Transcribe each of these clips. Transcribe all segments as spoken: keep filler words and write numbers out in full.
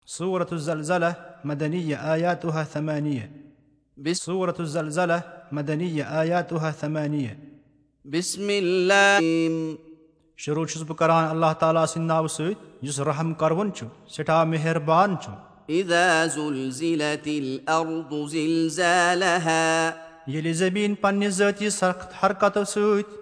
سورة الزلزلة، مدنية، آياتها ثمانية. بس- سورة الزلزلة، مدنية، آياتها ثمانية. بسم الله. شروع چھُس بہٕ کران اللہ تعالیٰ سٕنٛدِ ناوٕ سۭتۍ، یُس رحم کروُن چھُ، سٮ۪ٹھاہ مہربان چھُ۔ إذا زلزلت الأرض زلزالها. ییٚلہِ زٔمیٖن پننہِ ذٲتی سخت حرکتو سۭتۍ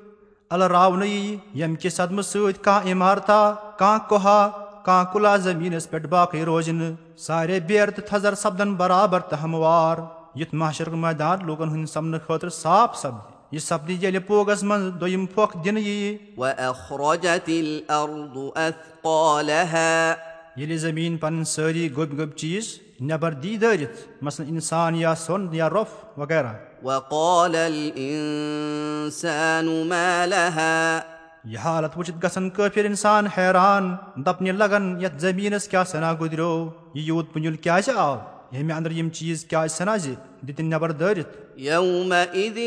الراونہٕ یی، ییٚمہِ کہِ صدمہٕ سۭتۍ کانٛہہ عمارتا، کانٛہہ کوہا، کانٛہہ کُلا زٔمیٖنس پٮ۪ٹھ باقٕے روزِ نہٕ، سارے بیرٕ تہٕ تھزر سپدن برابر تہٕ ہموار، یُتھ محشرُک مٲدان لوٗکن ہٕنٛدِ سامنہٕ خٲطرٕ صاف سپدِ۔ یہِ سپدِ ییٚلہِ پوگس منٛز دوٚیِم پھۄکھ دِنہٕ ییہِ۔ وأخرجت الأرض أثقالها. ییٚلہِ زٔمیٖن پنٕنۍ سٲری گوٚبۍ گوٚبۍ چیٖز نٮ۪بر دی دٲرِتھ، مثلاً اِنسان یا سۄن یا رۄپھ وغیرہ۔ وقال الإنسان ما لها. یہِ حالت وٕچھِتھ گژھن کٲفِر اِنسان حیران، دپنہِ لگن، یتھ زٔمیٖنس کیٛاہ سنا گُزریو، یہِ یوٗت پُنِل کیٛازِ آو، ییٚمہِ اندر یِم چیٖز کیٛازِ سنا زِ دِتِن نٮ۪بر دٲرِتھ؟ يومئذ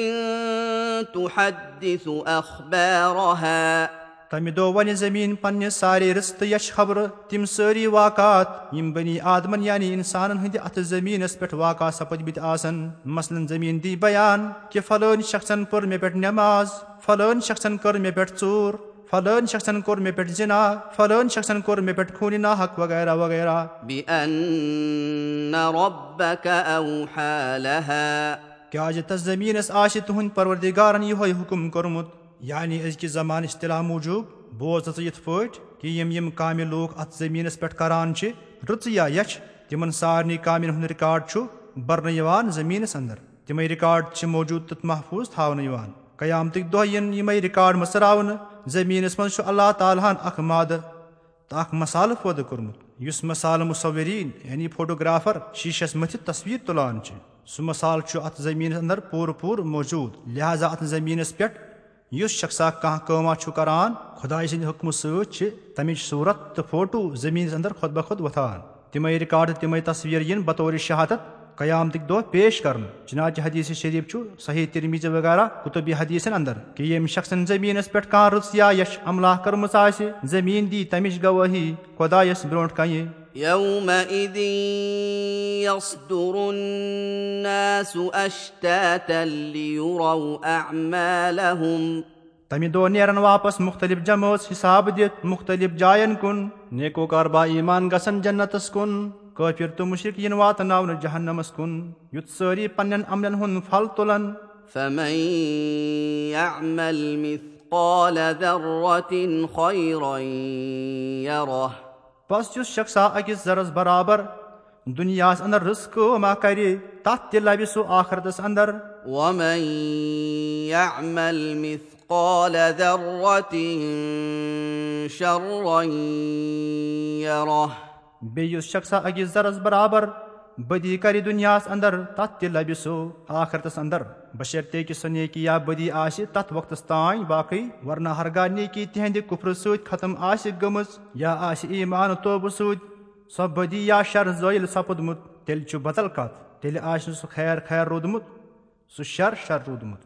تحدث أخبارها. تمہِ دۄہ ونہِ زٔمیٖن پننہِ سارے رٕژ تہٕ یچھِ خبرٕ، تِم سٲری واقعات، یِم بنی آدمن یعنی انسانن ہٕنٛدِ اتھٕ زٔمیٖنس پٮ۪ٹھ واقع سپٕدمٕتۍ آسن۔ مثلاً زٔمیٖن دی بیان کہِ فلٲنۍ شخصن پٔر مےٚ پٮ۪ٹھ نٮ۪ماز، فلٲنۍ شخصن کٔر مےٚ پٮ۪ٹھ ژوٗر، فلٲنۍ شخصن کوٚر مےٚ پٮ۪ٹھ زنا، فلٲنۍ شخصن کوٚر مےٚ پٮ۪ٹھ خوٗنِ ناحق وغیرہ وغیرہ۔ بأن ربك أوحى لها. کیٛازِ تس زٔمیٖنس آسہِ تُہنٛدِ پروردگارن یِہوے حُکم کوٚرمُت۔ یعنی أزکہِ زمانٕچ اصطلاح موٗجوٗب بوز ژٕ یِتھ پٲٹھۍ کہِ یِم یِم کامہِ لوٗکھ اتھ زٔمیٖنس پٮ۪ٹھ کران چھِ، رٕژٕ یا یچھِ، تِمن سارنٕے کامٮ۪ن ہُنٛد ریکارڈ چھُ برنہٕ یِوان زٔمیٖنس اندر۔ تِمے ریکارڈ چھِ موٗجوٗد تہٕ محفوٗظ تھاونہٕ یِوان۔ قیامتٕکۍ دۄہ یِن یِمے ریکارڈ مٕژراونہٕ۔ زٔمیٖنس منٛز چھُ اللہ تعالیٰ ہن اکھ مادٕ تہٕ اکھ مسالہٕ پٲدٕ کوٚرمُت، یُس مسالہٕ مصورین یعنی فوٹوگرافر شیٖشس مٔتھِتھ تصویر تُلان چھِ۔ سُہ مسالہٕ چھُ اتھ زٔمیٖنس اندر پوٗرٕ پوٗرٕ موٗجوٗد۔ لہذا اتھ زٔمیٖنس پٮ۪ٹھ یُس شخصا کانٛہہ کٲما چھُ کران، خدایہِ سٕنٛدِ حُکمہٕ سۭتۍ چھِ تمِچ صوٗرت تہٕ فوٹو زٔمیٖنس اندر خۄد بخۄد وۄتھان۔ تِمے ریکارڈ تہٕ تِمے تصویر یِن بطور شہادت قیامتٕکۍ دۄہ پیش کرنہٕ۔ چنانچہ حدیث شریف چھُ صحیح ترمذی وغیرہ کتب حدیثن اندر کہِ ییٚمہِ شخصن زٔمیٖنس پٮ۪ٹھ کانٛہہ رٕژ یا یچھ عملہ کٔرمٕژ آسہِ، زٔمیٖن دی تمِچ گوٲہی خدایس برونٛٹھ کنہِ۔ يومئذ يصدر الناس أشتاتا ليروا أعمالهم. تمہِ دۄہ نیرن واپس مُختٔلِف جمٲژ حساب دِتھ مُختٔلِف جاین کُن۔ نیکوکار با ایمان گژھن جنتس کُن، کٲفِر تہٕ مُشرِک یِن واتناونہٕ جہنمس کُن، یُتھ سٲری پننٮ۪ن عملن ہُنٛد پھل تُلن۔ فمن يعمل مثقال ذرة خيرا يره۔ پس یُس شخصا أکِس ذرس برابر دُنیاہس اندر رٕژ کٲم اکھ کرِ، تتھ تہِ لبہِ سُہ آخرتس اندر۔ ومن يعمل مثقال ذرة شرا يره۔ بیٚیہِ یُس شخصا أکِس ذرس برابر بدی کرِ دُنیاہس اندر، تتھ تہِ لبہِ سُہ آخرتس اندر، بشرطے کہِ سۄ نیکی یا بدی آسہِ تتھ وقتس تام باقٕے، ورنہ ہرگاہ نیکی تِہندِ کفرٕ سۭتۍ ختم آسہِ گٔمٕژ یا آسہِ ایمان توبہٕ سۭتۍ سۄ بدی یا شر زٲیِل سپُدمُت، تیٚلہِ چھُ بدل کتھ، تیٚلہِ آسہِ نہٕ سُہ خیر خیر روٗدمُت، سُہ شر شر روٗدمُت۔